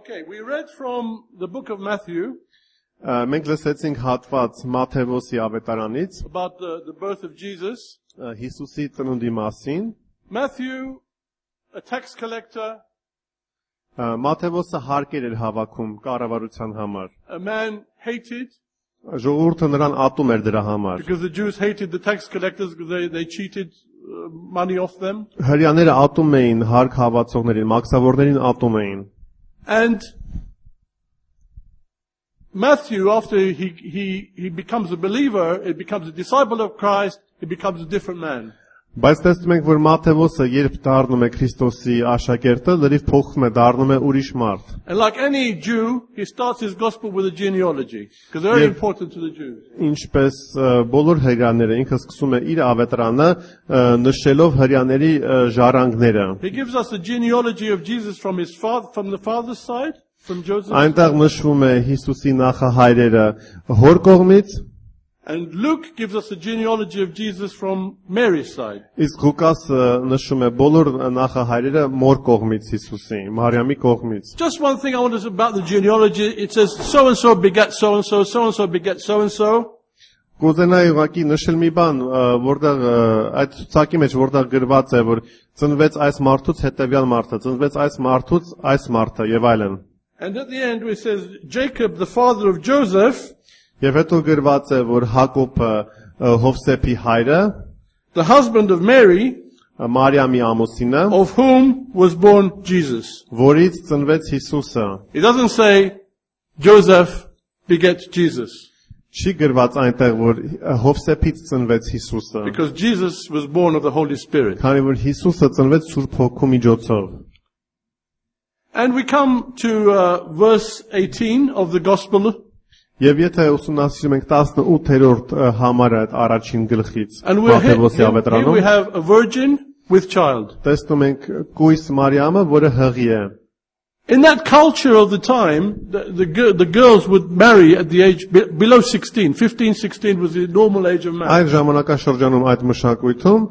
Okay, we read from the book of Matthew Մենք լսեցինք հատված Մատթեոսի ավետարանից about the birth of Jesus. Հիսուսի ծնունդի մասին. Matthew, a tax collector, Մատթեոսը հարկեր էր հավաքում կառավարության համար. a man hated Ժողովուրդը նրան ատում էր դրա համար. because the Jews hated the tax collectors because they cheated money off them. Հրեաները ատում էին հարկ հավացողներին, մաքսավորներին ատում էին. And Matthew, after he becomes a believer, he becomes a disciple of Christ, he becomes a different man. Բայց տեսնում ենք, որ Մատթեոսը երբ դառնում է Քրիստոսի աշակերտը, լրիվ փոխվում է, դառնում է ուրիշ մարդ. And like any Jew, he starts his gospel with a genealogy, because they're very important to the Jews. Ինչպես բոլոր հրեաները, ինքը սկսում է իր ավետարանը նշելով հրեաների ժառանգները. He gives us a genealogy of Jesus from the father's side, from Joseph. Այնտեղ նշվում է Հիսուսի նախահայրերը հոր կողմից. And Luke gives us a genealogy of Jesus from Mary's side. Իսկ Ղուկասը նշում է բոլոր նախահայրերը մոր կողմից Հիսուսի, Մարիամի կողմից. Just one thing I want to say about the genealogy. It says so and so begat so and so, so and so begat so and so. Կուզենայի ուղղակի նշել մի բան, որտեղ այդ ցուցակի մեջ որտեղ գրված է, որ ծնվեց այս մարդուց հետևյալ մարդը, ծնվեց այս մարդուց այս մարդը եւ այլն. And at the end it says Jacob, the father of Joseph, Եվ հետո գրված է, որ Հակոբը Հովսեփի հայրը, the husband of Mary, Մարիամի ամուսինը, of whom was born Jesus. որից ծնվեց Հիսուսը. It doesn't say Joseph begat Jesus, Չի գրված այնտեղ, որ Հովսեփից ծնվեց Հիսուսը, because Jesus was born of the Holy Spirit. քանի որ Հիսուսը ծնվեց Սուրբ Հոգու միջոցով. And we come to verse 18 of the Gospel. Եվ եթե ուսումնասիրում ենք 18-րդ համարը այդ առաջին գլխից, And here Մատթեոսի we ավետարանում, have a virgin with child. տեսնում ենք կույս Մարիամը, որը հղի է. In that culture of the time, the girls would marry at the age below 16. 15, 16 was the normal age of marriage. Այդ ժամանակաշրջանում այդ մշակույթում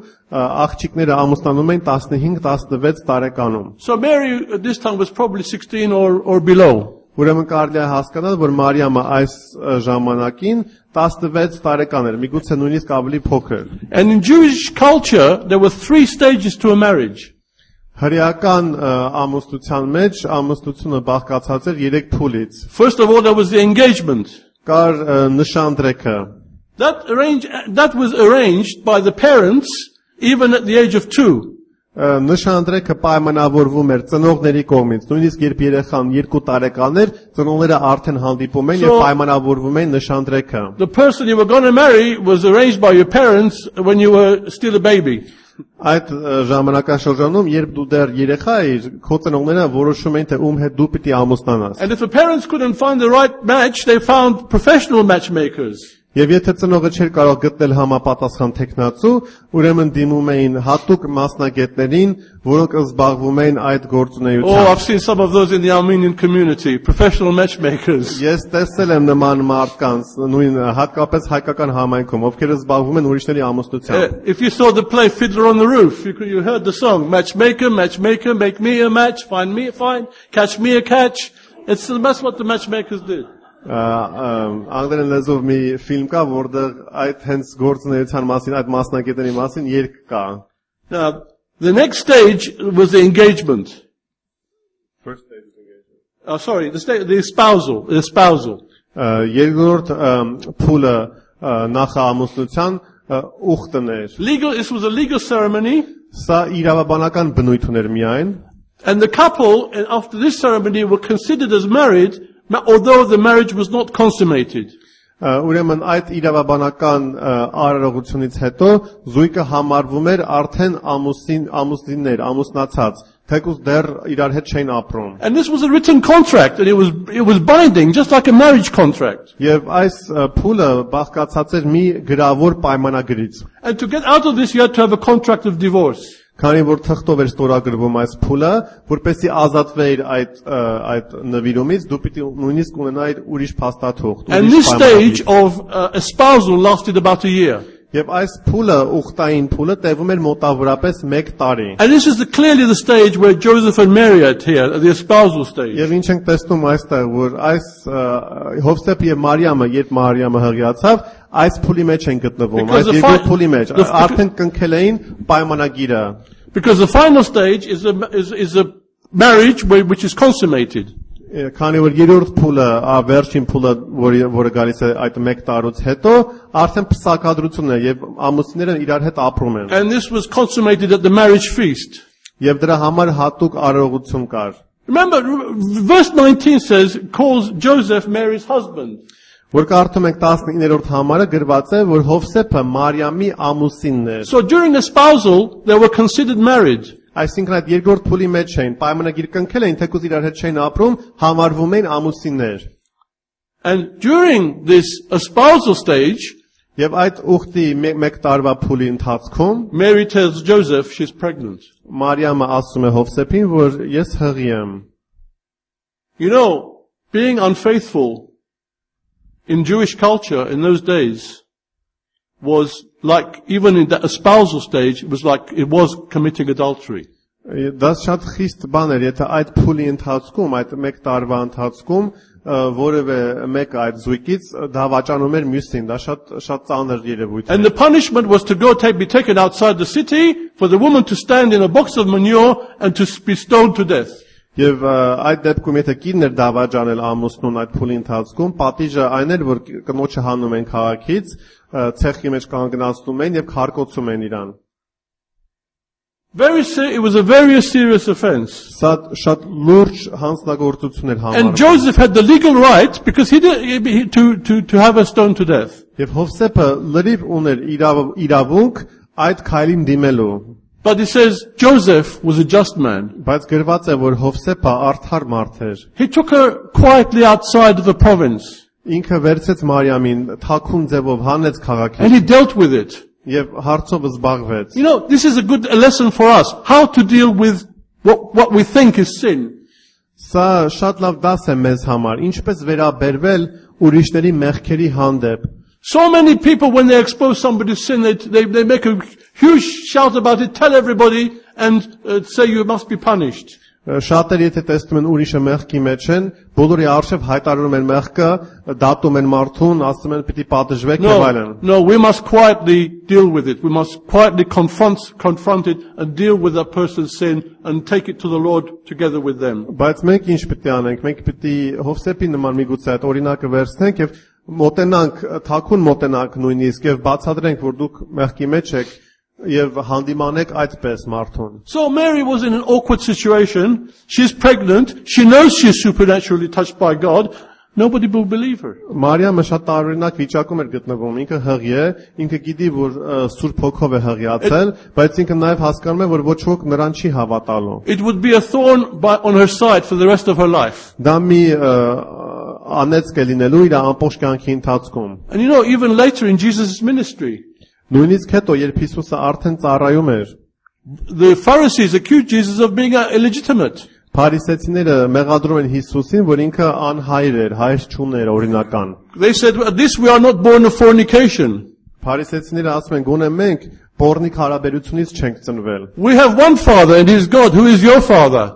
աղջիկները ամուսնանում էին 15-16 տարեկանում. So Mary at this time was probably 16 or below. Ուրեմն կարելի է հասկանալ, որ Մարիամը այս ժամանակին 16 տարեկան էր, միգուցե նույնիսկ ավելի փոքր. And in Jewish culture, there were 3 stages to a marriage. Հրեական ամուսնության մեջ ամուսնությունը բաղկացած էր 3 փուլից. First of all, there was the engagement. Կար նշանдрեքը. That was arranged by the parents even at the age of 2. Նշանдрեքը պայմանավորվում էր ծնողների կողմից, նույնիսկ երբ երեխան 2 տարեկան էր, ծնողները արդեն հանդիպում էին եւ պայմանավորվում էին նշանдрեքը. The person you were going to marry was arranged by your parents when you were still a baby. Այդ ժամանակաշրջանում, երբ դու դեռ երեխա էիր, քո ծնողները որոշում էին, թե ում հետ դու պիտի ամուսնանաս. And if the parents couldn't find the right match, they found professional matchmakers. Եվ եթե ծնողը չէր կարող գտնել համապատասխան տեխնացու, ուրեմն դիմում էին հատուկ մասնագետներին, որոնք զբաղվում էին այդ գործունեությամբ. Oh, I've seen some of those in the Armenian community, professional matchmakers. Ես տեսել եմ նման մարդկանց, նույն հատկապես հայկական համայնքում, ովքեր զբաղվում են ուրիշների ամուսնությամբ. If you saw the play Fiddler on the Roof, you heard the song, matchmaker, matchmaker, make me a match, find me a find, catch me a catch. That's what the matchmakers did. Անգլերեն լեզվով մի ֆիլմ կա, որտեղ այդ հենց գործունեության մասին, այդ մասնագետների մասին երգ կա. Now, the next stage was the engagement. First stage is engagement. Oh, sorry, the espousal. Երկրորդ փուլը նախամուսնության ուխտն էր. This was a legal ceremony. Սա իրավաբանական բնույթ ուներ միայն. And the couple, after this ceremony, were considered as married, although the marriage was not consummated. Ուրեմն այդ իրավաբանական արարողությունից հետո զույգը համարվում էր արդեն ամուսիններ, ամուսնացած, թեկուզ դեռ իրար հետ չէին ապրում. And this was a written contract, and it was binding, just like a marriage contract. Եվ այս փուլը բաղկացած էր մի գրավոր պայմանագրից. And to get out of this, you had to have a contract of divorce. Քանի որ թղթով էր ստորագրվում այս փուլը, որպեսզի ազատվեիր այդ նվիրումից, դու պիտի նույնիսկ ունենայիր ուրիշ փաստաթուղթ. And this stage of espousal lasted about a year. Եվ այս փուլը, ուխտային փուլը տևում էր մոտավորապես 1 տարի։ And this is clearly the stage where Joseph and Mary are here, at the espousal stage. Եվ ինչ ենք տեսնում այստեղ, որ այս Հովսեփ եւ Մարիամը, երբ Մարիամը հղիացավ, այս փուլի մեջ են գտնվում, այս երկու փուլի մեջ, արդեն կնքել էին պայմանագիրը։ Because the final stage is a marriage which is consummated. Քանի որ երրորդ փուլը, վերջին փուլը, որը գալիս է այդ 1 տարուց հետո, արդեն փսակադրությունն է եւ ամուսինները իրար հետ ապրում են։ And this was consummated at the marriage feast. Եվ դրա համար հատուկ արարողություն կար։ Remember, verse 19 says, calls Joseph Mary's husband. Որ կարդում ենք 19-րդ համարը գրված է, որ Հովսեփը Մարիամի ամուսինն էր։ So during the spousal, they were considered married. Այսինքն այդ երկրորդ փուլի մեջ էին, պայմանագիր կնքել էին, թեկուզ իրար հետ չէին ապրում, համարվում էին ամուսիններ։ And during this espousal stage, Եվ այդ ուխտի 1 տարվա փուլի ընթացքում Mary tells Joseph she's pregnant. Մարիամը ասում է Հովսեփին, որ ես հղի եմ։ You know, being unfaithful in Jewish culture in those days was like, even in the espousal stage, it was committing adultery. Դա շատ խիստ բան էր, եթե այդ փուլի ընթացքում, այդ 1 տարվա ընթացքում որևէ մեկը այդ զույգից դավաճանում էր մյուսին, դա շատ ծանր երևույթ And the punishment was to be taken outside the city, for the woman to stand in a box of manure and to be stoned to death. Եվ այդ դեպքում եթե կինն էր դավաճանել ամուսնուն այդ փուլի ընթացքում, պատիժը այն էր, որ կնոջը հանում են քաղաքից, ցեխի մեջ կանգնացնում են եւ քարկոցում են իրան։ It was a very serious offense. Շատ լուրջ հանցնագործություն էր համարվում։ And Joseph had the legal right, because to have her stoned to death. Եվ Հովսեփը լրիվ ուներ իրավունք այդ քայլին դիմելու։ But it says Joseph was a just man. Բայց գրված է, որ Հովսեփը արդար մարդ էր։ He took her quietly outside of the province. Ինքը վերցեց Մարիամին, թաքուն ձևով հանեց քաղաքից։ And he dealt with it. Եվ հարցով զբաղվեց։ You know, this is a good lesson for us, how to deal with what we think is sin. Սա շատ լավ դաս է մեզ համար, ինչպես վերաբերվել ուրիշների մեղքերի հանդեպ։ So many people, when they expose somebody's sin, they make a huge shout about it, tell everybody, and say you must be punished. Շատերը եթե տեսնում են ուրիշը մեղքի մեջ են, բոլորի արժև հայտարարում են մեղքը, դատում են մարդուն, ասում են պիտի պատժվեք եւ այլն։ No, we must quietly deal with it. We must quietly confront it and deal with that person's sin and take it to the Lord together with them. Բայց մենք ինչ պիտի անենք, մենք պիտի Հովսեփի նման միգուցե այդ օրինակը վերցնենք եւ մոտենանք, թաքուն մոտենանք նույնիսկ եւ բացատրենք, որ դուք մեղքի մեջ եք եւ հանդիմանեք այդպես մարդուն։ So Mary was in an awkward situation. She's pregnant. She knows she's supernaturally touched by God. Nobody will believe her. Մարիամը շատ տարօրինակ վիճակում էր գտնվում։ Ինքը հղի է, ինքը գիտի, որ Սուրբ Հոգով է հղիացել, բայց ինքը նաեւ հասկանում է, որ ոչ ոք նրան չի հավատալու։ It would be a thorn on her side for the rest of her life. Դա մի անեծք է լինելու իր ամբողջ կյանքի ընթացքում։ And you know, even later in Jesus' ministry, Նույնիսկ հետո, երբ Հիսուսը արդեն ծառայում էր, the Pharisees accused Jesus of being illegitimate. Փարիսեցիները մեղադրում են Հիսուսին, որ ինքը անհայր էր, հայր չուներ օրինական։ They said, at least we are not born of fornication. Փարիսեցիները ասում են, գոնե մենք բորնիկ հարաբերությունից չենք ծնվել։ We have one father and he is God. Who is your father?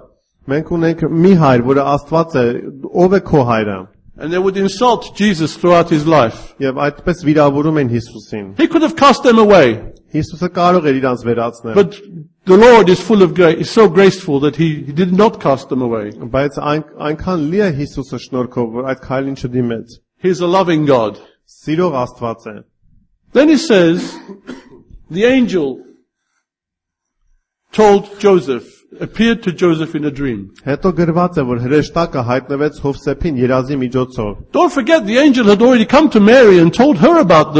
Մենք ունենք մի հայր, որը Աստված է, ով է քո հայրը։ And they would insult Jesus throughout his life. Եվ այդպես վիրավորում են Հիսուսին։ He could have cast them away. Հիսուսը կարող էր իրանց վերացնել։ But the Lord is full of grace, is so graceful that he did not cast them away. Բայց այնքան լի է Հիսուսը շնորհքով, որ այդ քայլին չդիմեց։ He is a loving God. Սիրող Աստված է։ Then he says, the angel told Joseph, appeared to Joseph in a dream. Հետո գրված է, որ հրեշտակը հայտնվեց Հովսեփին երազի միջոցով։ Don't forget, the angel had already come to Mary and told her about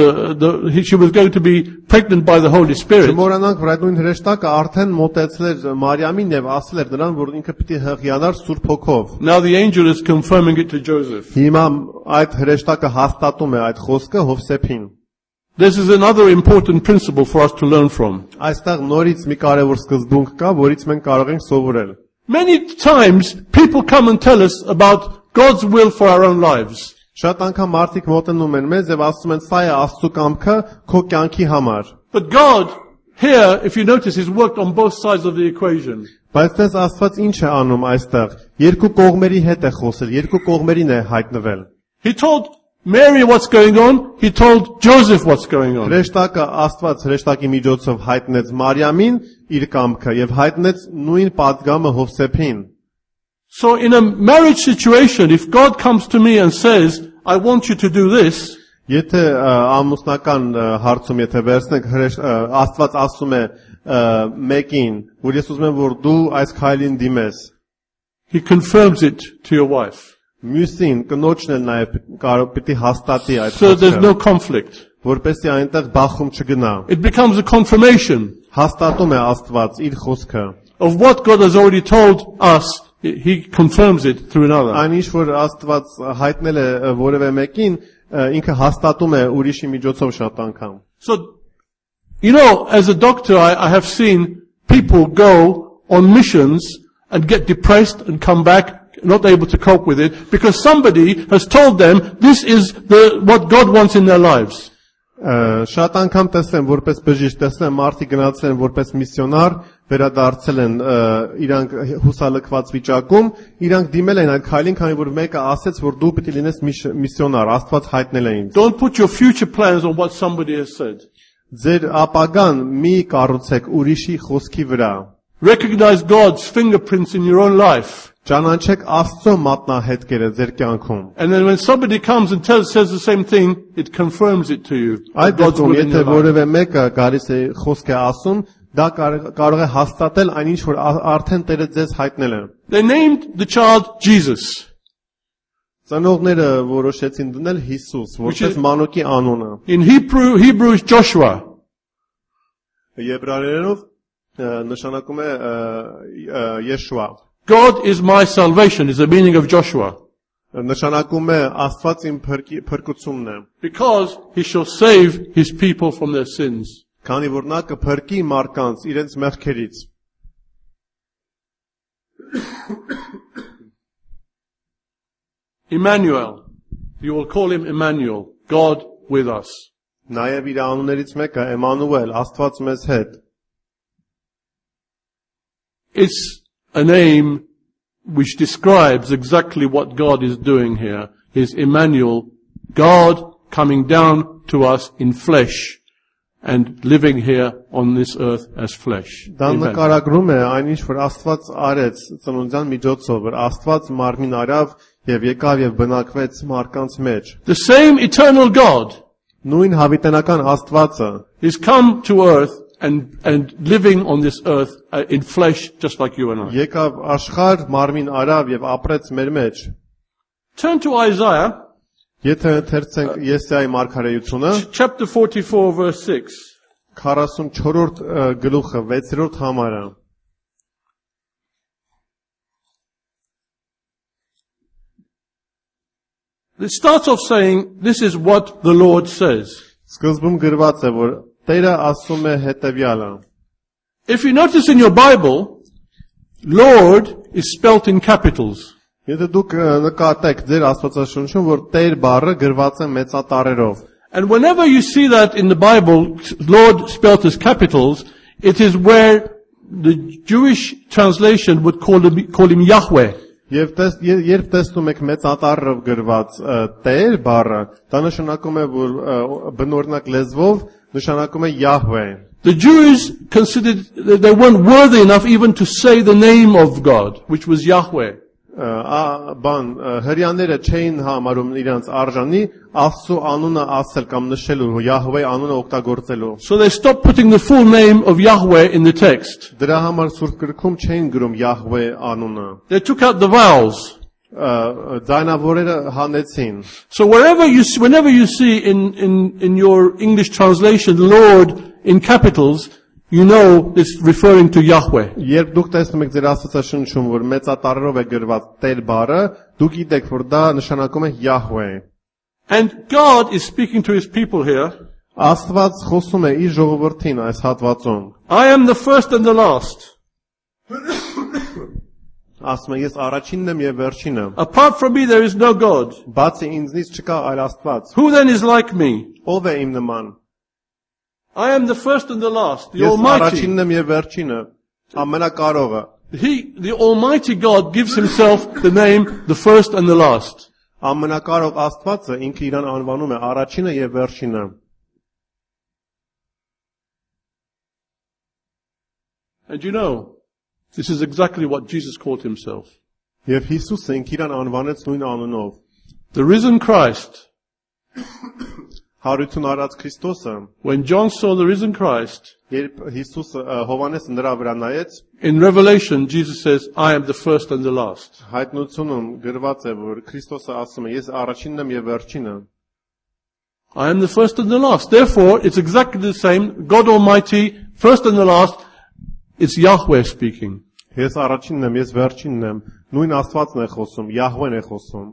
she was going to be pregnant by the Holy Spirit. Չմոռանանք, որ այդ նույն հրեշտակը արդեն մոտեցել էր Մարիամին եւ ասել էր նրան, որ ինքը պիտի հղիանար Սուրբ Հոգով։ Now the angel is confirming it to Joseph. Հիմա այդ հրեշտակը հաստատում է այդ խոսքը Հովսեփին։ This is another important principle for us to learn from. Այստեղ նորից մի կարևոր սկզբունք կա, որից մենք կարող ենք սովորել։ Many times people come and tell us about God's will for our own lives. Շատ անգամ մարդիկ մոտենում են մեզ եւ ասում են սա է Աստծո կամքը քո կյանքի համար։ But God, here, if you notice, He's worked on both sides of the equation. Բայց դες Աստված ինչ է անում այստեղ։ Երկու կողմերի հետ է խոսել, երկու կողմերին է հայտնվել։ He told Mary what's going on, He told Joseph what's going on. Հրեշտակը Աստված հրեշտակի միջոցով հայտնեց Մարիամին իր կամքը եւ հայտնեց նույն падգամը Հովսեփին։ So in a marriage situation, if God comes to me and says, I want you to do this, Եթե ամուսնական հարցում եթե վերցնենք Աստված ասում է մեկին, որ ես ուզում եմ որ դու այս քայլին դիմես, He confirms it to your wife. մյուսին կնոջն էլ նաև կարող պիտի հաստատի այդ So there's no խոսքը, conflict. որպեսզի այնտեղ բախում չգնա։ It becomes a confirmation Հաստատում է Աստված իր խոսքը։ of what God has already told us. He confirms it through another. Այն ինչ որ Աստված հայտնել է որևէ մեկին, ինքը հաստատում է ուրիշի միջոցով շատ անգամ։ So, you know, as a doctor, I have seen people go on missions and get depressed and come back, not able to cope with it, because somebody has told them this is what God wants in their lives. Շատ անգամ տեսեմ որպես բժիշկ, տեսեմ մարդիկ գնացել են որպես միսիոնար, վերադարձել են իրանք հուսալքված վիճակում, իրանք դիմել են այդ քայլին, քանի որ մեկը ասեց, որ դու պիտի լինես միսիոնար, Աստված հայտնել է ինձ։ Don't put your future plans on what somebody has said. Ձեր ապագան մի կառուցեք ուրիշի խոսքի վրա։ Recognize God's fingerprints in your own life. Ճանաչեք Աստծո մատնահետքերը ձեր կյանքում։ And then when somebody comes and says the same thing, it confirms it to you. Այդ God's դեպքում will in եթե your life. որևէ մեկը գալիս է խոսք է ասում, դա կարող է հաստատել այն ինչ որ արդեն Տերը ձեզ հայտնել է։ They named the child Jesus. Ծնողները որոշեցին դնել Հիսուս, որպես մանուկի անունը։ In Hebrews Joshua. Եբրայերենով նշանակում է Yeshua։ God is my salvation is the meaning of Joshua. Նշանակում է Աստված իմ փրկությունն է։ Because He shall save His people from their sins. Քանի որ նա կփրկի մարդկանց իրենց մեղքերից։ Emmanuel. You will call Him Emmanuel. God with us. Նաև իր անուններից մեկը Էմանուել, Աստված մեզ հետ։ It's a name which describes exactly what God is doing here. Is Emmanuel, God coming down to us in flesh and living here on this earth as flesh. Դա Amen. նկարագրում է այն ինչ որ Աստված արեց ծնունդյան միջոցով, որ Աստված մարմին արավ եւ եկավ եւ բնակվեց մարդկանց մեջ։ The same eternal God Նույն հավիտենական Աստվածը is come to earth and living on this earth in flesh just like you and I. եկավ աշխարհ, մարմին արավ եւ ապրեց մեր մեջ։ Turn to Isaiah Եթե ընթերցենք Եսայի մարգարեությունը, chapter 44 verse 6. 44-րդ գլուխը 6-րդ համարը։ It starts off saying, this is what the Lord says. Սկզբում գրված է, որ Տերը ասում է հետևյալը։ If you notice in your Bible, Lord is spelt in capitals. Եթե դուք նկատեք ձեր Աստվածաշունչում, որ Տեր բառը գրված է մեծատառերով։ And whenever you see that in the Bible, Lord spelt as capitals, it is where the Jewish translation would call him Yahweh. Եվ երբ տեսնում եք մեծատառով գրված Տեր բառը, դա նշանակում է, որ բնօրինակ լեզվով նշանակում է Yahweh։ The Jews considered that they weren't worthy enough even to say the name of God, which was Yahweh. Հрьяաները չէին համարում իրենց արժանի Աստծո անունը ասել կամ նշելու, Yahweh անունը օգտագործելու։ So they stopped putting the full name of Yahweh in the text. Դրա համար Սուրբ Գրքում չէին գրում Yahweh անունը։ They took out the vowels. Ձայնավորերը հանեցին։ So whenever you see in your English translation Lord in capitals, you know it's referring to Yahweh. Երբ դուք տեսնում եք ձեր Աստվածաշունչում, որ մեծատառերով է գրված Տեր բառը, դուք գիտեք, որ դա նշանակում է Yahweh։ And God is speaking to His people here. Աստված խոսում է իր ժողովրդին այս հատվածում։ I am the first and the last. Ասում է ես առաջինն եմ եւ վերջինը։ Apart from me there is no God. Բացի ինձնից չկա այլ Աստված։ Who then is like me? Ով է իմ նման։ I am the first and the last, the Ես Almighty. առաջինն եմ եւ վերջինը, ամենակարողը։ The Almighty God gives himself the name the first and the last. Ամենակարող Աստվածը ինքը իրան անվանում է առաջինը եւ վերջինը։ And you know, this is exactly what Jesus called himself. Եվ Հիսուսը ինքը իրան անվանեց նույն անունով։ The risen Christ. Հարություն արած Քրիստոսը, When John saw the risen Christ, երբ Հիսուսը Հովանեսը նրա վրա նայեց, in Revelation, Jesus says, I am the first and the last. հայտնությունում գրված է, որ Քրիստոսը ասում է, ես առաջինն եմ եւ վերջինը։ I am the first and the last. Therefore, it's exactly the same. God Almighty, first and the last, it's Yahweh speaking. Ես առաջինն եմ, ես վերջինն եմ։ Նույն Աստվածն է խոսում, Յահվեն է խոսում։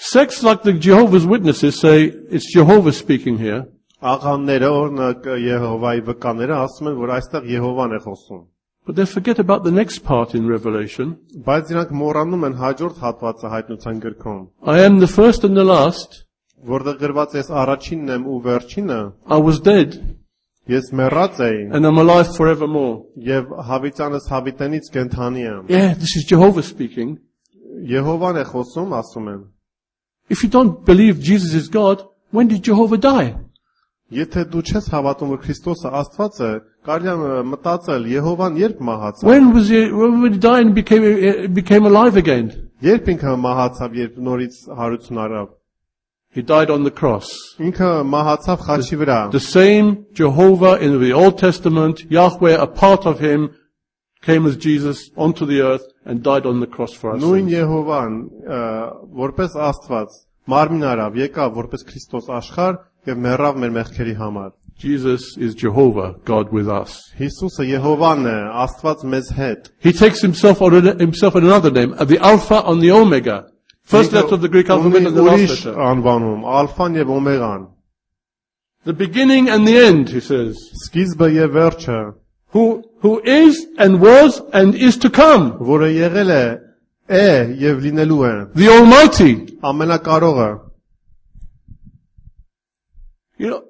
Sects like the Jehovah's Witnesses say it's Jehovah speaking here. Աղանները, օրինակ Եհովայի վկաները ասում են, որ այստեղ Եհովան է խոսում։ But they forget about the next part in Revelation. Բայց իրանք մոռանում են հաջորդ հատվածը հայտնության գրքում, I am the first and the last. որտեղ գրված է ես առաջինն եմ ու վերջինը, I was dead ես մեռած էի and I'm alive forevermore. եւ հավիտյանս հավիտենից կենթանի եմ։ Yeah, this is Jehovah speaking. Եհովան է խոսում, ասում են։ If you don't believe Jesus is God, when did Jehovah die? Եթե դու չես հավատում, որ Քրիստոսը Աստված է, կարելի է մտածել Եհովան երբ մահացավ։ When did he die and became alive again? Երբ ինքը մահացավ, երբ նորից հարություն արավ։ He died on the cross. Ինքը մահացավ խաչի վրա։ The same Jehovah in the Old Testament, Yahweh, a part of him, came as Jesus onto the earth and died on the cross for us. Նույն Եհովան, որպես Աստված, մարմին արավ, եկավ որպես Քրիստոս աշխարհ եւ մեռավ մեր մեղքերի համար։ Jesus is Jehovah, God with us. Հիսուսը Եհովան է, Աստված մեզ հետ։ He takes himself another name, the Alpha and the Omega. First letter of the Greek alphabet and the last letter. Անվանում, Ալֆան եւ Օմեգան։ The beginning and the end, he says. Սկիզբը եւ վերջը, Who is and was and is to come. որը եղել է եւ լինելու է։ The Almighty. Ամենակարողը։ You know,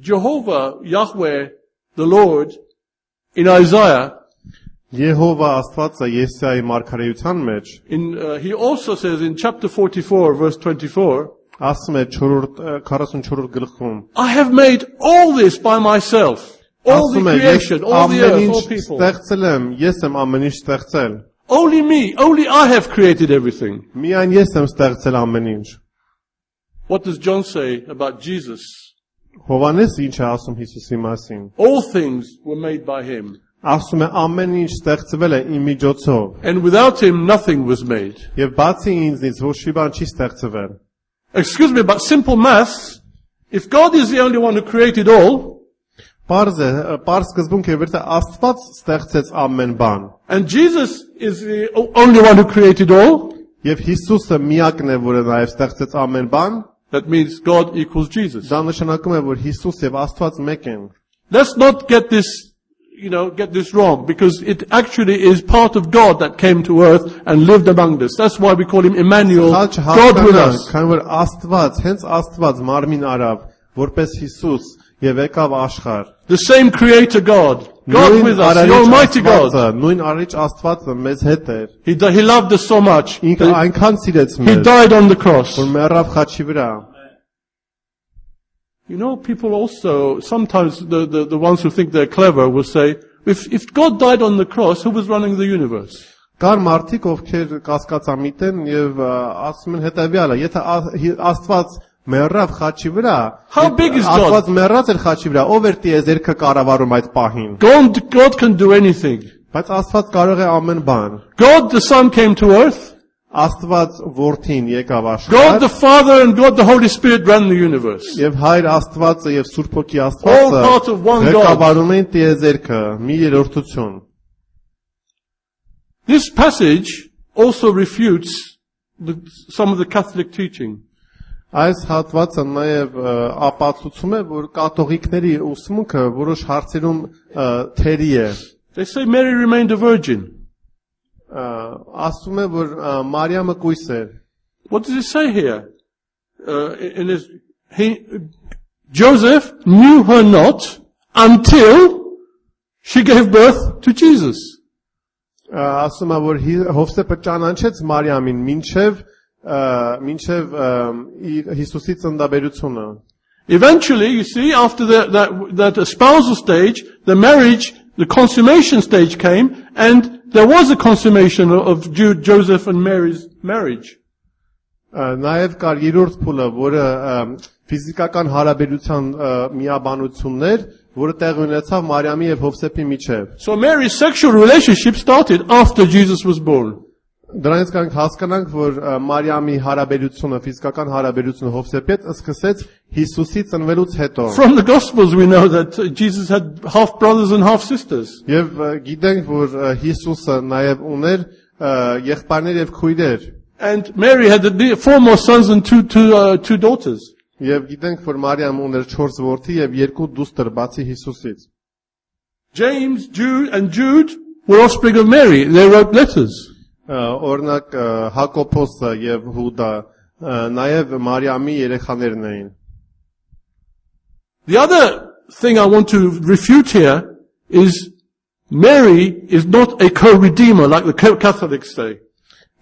Jehovah, Yahweh, the Lord, in Isaiah, Եհովա Աստվածը Եսայի մարգարեության մեջ he also says in chapter 44, verse 24, ասում է 44-րդ գլխում, I have made all this by myself. All the ասում է ես creation, all the ամեն earth, ինչ all people. ստեղծել եմ, ես եմ ամեն ինչ ստեղծել։ Only me, only I have created everything. Միայն ես եմ ստեղծել ամեն ինչ։ What does John say about Jesus? Հովանես ինչ է ասում Հիսուսի մասին։ All things were made by him. Ասում է ամեն ինչ ստեղծվել է իմ միջոցով։ And without him, nothing was made. Եվ բացի ինձնից ոչ մի բան չի ստեղծվել։ Excuse me, but simple maths, if God is the only one who created all, Պարզ սկզբունք է, որ Աստված ստեղծեց ամեն բան։ and Jesus is the only one who created all, Եվ Հիսուսը միակն է, որը նաև ստեղծեց ամեն բան, that means God equals Jesus. դա նշանակում է, որ Հիսուս եւ Աստված մեկ են։ Let's not get this wrong, because it actually is part of God that came to earth and lived among us. That's why we call him Emmanuel, God with us. Քանի որ Աստված, հենց Աստված մարմին արավ, որպես Հիսուս եւ եկավ աշխարհ։ The same creator God, God with us, the Almighty God. Նույն արիչ Աստվածը մեզ հետ էր։ He loved us so much. Ինքը այնքան սիրեց He մեզ, died on the cross. որ մեռավ խաչի վրա։ You know, people also, sometimes the ones who think they're clever will say, if God died on the cross, who was running the universe? Կար մարդիկ, ովքեր կասկածամիտ են եւ ասում են հետեւյալը, եթե Աստված մեռավ խաչի վրա, How big is God? Աստված մեռած էր խաչի վրա, ով էր տիեզերքը կառավարում այդ պահին։ God can do anything. Բայց Աստված կարող է ամեն բան։ God the Son came to earth. Աստված որդին եկավ God աշխարհ, the Father and God the Holy Spirit ran the universe. եւ Հայր Աստվածը եւ Սուրբ Հոգի All part of one Աստվածը God. ղեկավարում են տիեզերքը, մի երրորդություն։ This passage also refutes some of the Catholic teaching. Այս հատվածը նաև ապացուցում է, որ կաթողիկների ուսմունքը որոշ հարցերում թերի է։ They say Mary remained a virgin. ասում է որ Մարիամը կույս էր։ What does it say here? Joseph knew her not until she gave birth to Jesus. Ասում է որ Հովսեփը ճանաչեց Մարիամին մինչև Հիսուսի ծննդաբերությունը։ Eventually, you see, after that espousal stage, the marriage, the consummation stage came, and there was a consummation of Joseph and Mary's marriage. Նաև կար երրորդ փուլը, որը ֆիզիկական հարաբերության միաբանություններ, որը տեղի ունեցավ Մարիամի եւ Հովսեփի միջեւ։ So Mary's sexual relationship started after Jesus was born. Դրանից կարող հասկանանք, որ Մարիամի հարաբերությունը, ֆիզիկական հարաբերությունը Հովսեփի հետ սկսեց Հիսուսի ծնվելուց հետո։ From the Gospels we know that Jesus had half brothers and half sisters. Եվ գիտենք, որ Հիսուսը նաև ուներ եղբայրներ եւ քույրեր։ And Mary had 4 more sons and two daughters. Եվ գիտենք, որ Մարիամ ուներ 4 որդի եւ 2 դուստր բացի Հիսուսից։ James, Jude were offspring of Mary. They wrote letters. Օրինակ Հակոբոսը եւ Հուդա նաև Մարիամի երեխաներն էին։ The other thing I want to refute here is Mary is not a co-redeemer like the Catholics say.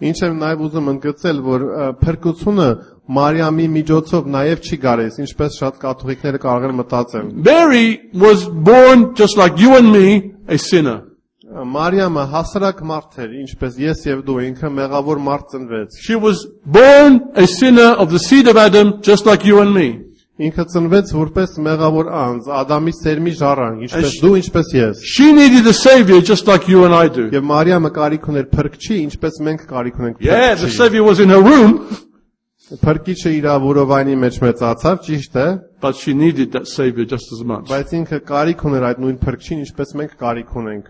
Ինչ եմ նաև ուզում ընդգծել, որ փրկությունը Մարիամի միջոցով նաև չի գարես, ինչպես շատ կաթողիկները կարող են մտածել։ Mary was born just like you and me, a sinner. Մարիամը հասարակ մարդ էր, ինչպես ես եւ դու, ինքը մեղավոր մարդ ծնվեց։ She was born a sinner of the seed of Adam, just like you and me. Ինքը ծնվեց որպես մեղավոր անձ, Ադամի սերմի ժառանգ, ինչպես դու, ինչպես ես։ She needed a savior just like you and I do. Եվ Մարիամը կարիք ուներ փրկչի, ինչպես մենք կարիք ունենք փրկչի։ Yeah, the savior was in her womb. Փրկիչը իր որովայնի մեջ մեծացավ, ճիշտ է, but she needed that savior just as much. Բայց ինքը կարիք ուներ այդ նույն փրկչին, ինչպես մենք կարիք ունենք։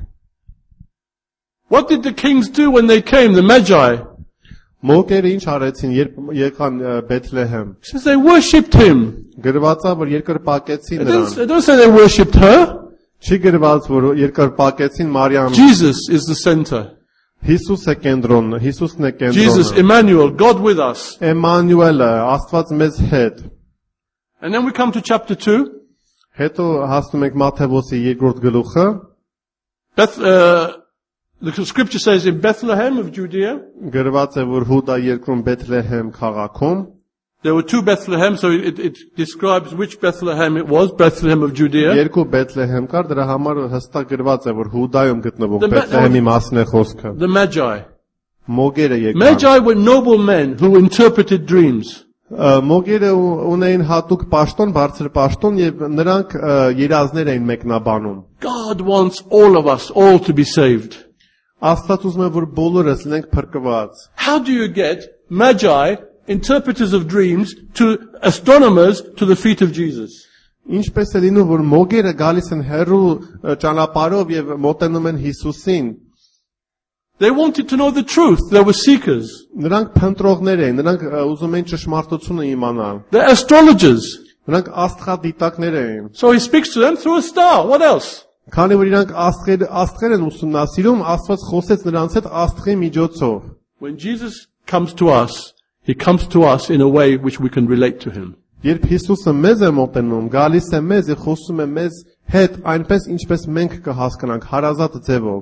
What did the kings do when they came, the Magi? Մոգերը ինչ արեցին, երբ եկան Բեթլեհեմ։ Says they worshipped him. Գրված է, որ երկրպագեցին նրան։ They don't say they worshipped her. Չի գրված, որ երկրպագեցին Մարիամին։ Jesus is the center. Հիսուս է կենտրոնը, Հիսուսն է կենտրոնը։ Jesus, Emmanuel, God with us. Էմանուելը, Աստված մեզ հետ։ And then we come to chapter 2. Հետո հասնում ենք Մատթեոսի երկրորդ գլուխը։ The scripture says in Bethlehem of Judea. Գրված է, որ Հուդա երկրում Բեթլեհեմ քաղաքում։ There were 2 Bethlehem, so it describes which Bethlehem it was, Bethlehem of Judea. Երկու Բեթլեհեմ կար, դրա համար հստակ գրված է, որ Հուդայում գտնվող Բեթլեհեմի մասն է խոսքը։ The Magi. Մոգերը եկան։ Magi were noble men who interpreted dreams. Մոգերը ունեին հատուկ պաշտոն, բարձր պաշտոն եւ նրանք երազներ էին մեկնաբանում։ God wants all of us all to be saved. Աստված ուզում է, որ բոլորս լինենք փրկված։ How do you get Magi, interpreters of dreams, to astronomers to the feet of Jesus? Ինչպես է լինում, որ մոգերը գալիս են հեռու ճանապարհով եւ մոտենում են Հիսուսին։ They wanted to know the truth. They were seekers. Նրանք փնտրողներ էին, նրանք ուզում էին ճշմարտությունը իմանալ։ They're astrologers. Նրանք աստղադիտակներ էին։ So he speaks to them through a star. What else? Քանի որ իրանք աստղեր են ուսումնասիրում, Աստված խոսեց նրանց հետ աստղի միջոցով։ When Jesus comes to us, he comes to us in a way which we can relate to him. Երբ Հիսուսը մեզ է մոտենում, գալիս է մեզ եւ խոսում է մեզ հետ այնպես, ինչպես մենք կհասկանանք, հարազատ ձևով։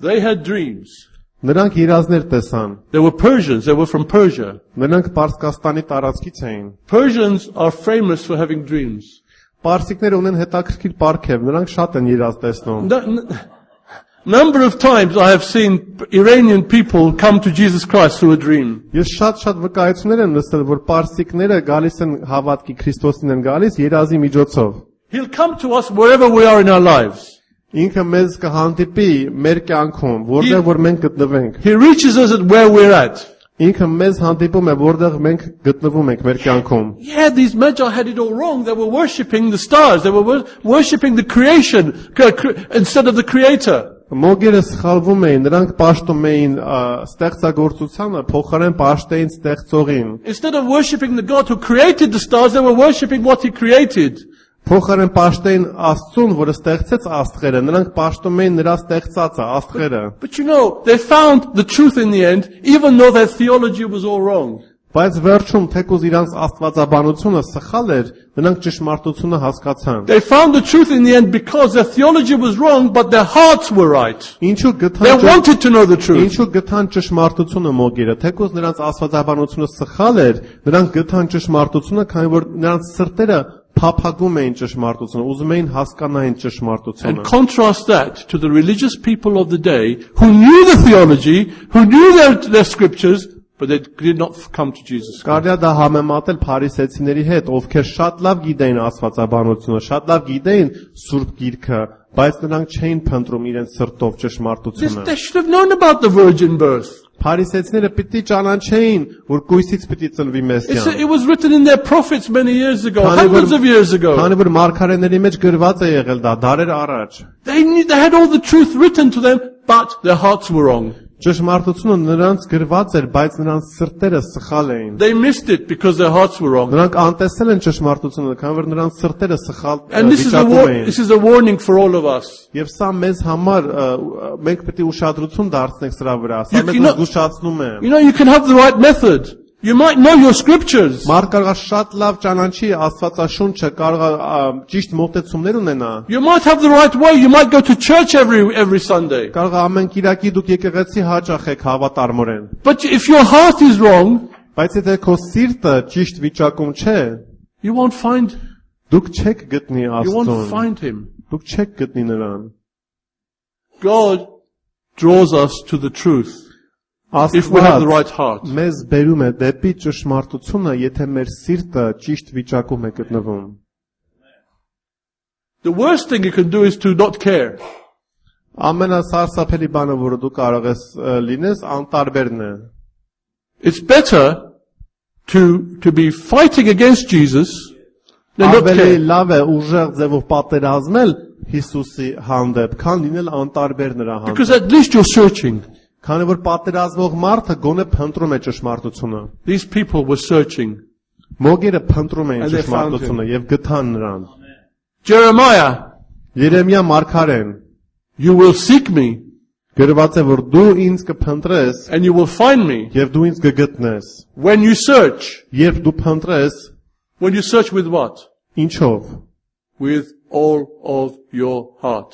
They had dreams. Նրանք երազներ տեսան։ They were Persians. They were from Persia. Նրանք Պարսկաստանի տարածքից էին։ Persians are famous for having dreams. Պարսիկները ունեն հետաքրքիր պարգև, նրանք շատ են երազ տեսնում։ Number of times I have seen Iranian people come to Jesus Christ through a dream. Ես շատ վկայություններ եմ լսել, որ պարսիկները գալիս են հավատքի Քրիստոսին են գալիս երազի միջոցով։ He'll come to us wherever we are in our lives. Ինքը մեզ կհանդիպի մեր կյանքում, որտեղ որ մենք գտնվենք։ He reaches us at where we're at. Ինքը մեզ հանդիպում է, որտեղ մենք գտնվում ենք մեր կյանքում։ Yeah, these Magi had it all wrong. They were worshipping the stars. They were worshipping the creation instead of the Creator. Մոգերը սխալվում էին, նրանք պաշտում էին ստեղծագործությանը, փոխարեն պաշտեին ստեղծողին։ Instead of worshipping the God who created the stars, they were worshipping what he created. Փոխարեն պաշտեին Աստծուն, որը ստեղծեց աստղերը, նրանք պաշտում էին նրա ստեղծածը, աստղերը։ But you know, they found the truth in the end, even though their theology was all wrong. Բայց վերջում թեկուզ իրանց աստվածաբանությունը սխալ էր, նրանք ճշմարտությունը հասկացան։ They found the truth in the end because their theology was wrong, but their hearts were right. Ինչու They գտան wanted to know the truth. Ինչու գտան ճշմարտությունը մոգերը, թեկուզ նրանց աստվածաբանությունը սխալ էր, նրանք գտան ճշմարտությունը, քանի որ նրանց սրտերը փափագում էին ճշմարտությունը, ուզում էին հասկանային ճշմարտությունը։ And contrast that to the religious people of the day who knew the theology, who knew their scriptures, but they did not come to Jesus Christ. Կարելի է դա համեմատել փարիսեցիների հետ, ովքեր շատ լավ գիտեին աստվածաբանությունը, շատ լավ գիտեին Սուրբ Գիրքը, բայց նրանք չէին փնտրում իրենց սրտով ճշմարտությունը։ They should have known about the virgin birth. Փարիսեցիները պիտի ճանաչեին, որ կույսից պիտի ծնվի Մեսիան։ It was written in their prophets many years ago, hundreds of years ago. Քանի որ մարգարեների մեջ գրված է եղել դա դարեր առաջ։ They had all the truth written to them, but their hearts were wrong. Ճշմարտությունը նրանց գրված էր, բայց նրանց սրտերը սխալ էին։ They missed it because their hearts were wrong. Նրանք անտեսել են ճշմարտությունը, քանի որ նրանց սրտերը սխալ And this վիճակում is a warning for all of us. Եվ սա մեզ համար մենք պետք է ուշադրություն դարձնենք սրա վրա։ Սա You մեզ cannot- զգուշացնում է։ You know, you can have the right method. You might know your scriptures. Մարդ կարող է շատ լավ ճանաչի Աստվածաշունչը, կարող է ճիշտ մոտեցումներ ունենա։ You might have the right way. You might go to church every Sunday. Կարող է ամեն Կիրակի դուք եկեղեցի հաճախ եք հավատարմորեն։ But if your heart is wrong, Բայց եթե քո սիրտը ճիշտ վիճակում չէ, you won't find դուք չեք գտնի Աստծուն։ find him. Դուք չեք գտնի նրան։ God draws us to the truth if we have the right heart. Մեզ բերում է դեպի ճշմարտությունը, եթե մեր սիրտը ճիշտ վիճակում է գտնվում։ The worst thing you can do is to not care. Ամենասարսափելի բանը, որը դու կարող ես լինես, անտարբերն է։ It's better to be fighting against Jesus than not Ավելի care. լավ է ուժեղ ձևով պատերազմել Հիսուսի հանդեպ, քան լինել անտարբեր նրա Because հանդեպ։ at least you're searching. Քանի որ պատերազմող մարդը գոնե փնտրում է ճշմարտությունը։ These people were searching. Մոգերը փնտրում էին And they found ճշմարտությունը եւ գտան նրան։ Jeremiah, Երեմիա մարգարեն you will seek me գրված է, որ դու ինձ կփնտրես and you will find me եւ դու ինձ կգտնես։ when you search. Երբ դու փնտրես, When you search with what? ինչով։ With all of your heart.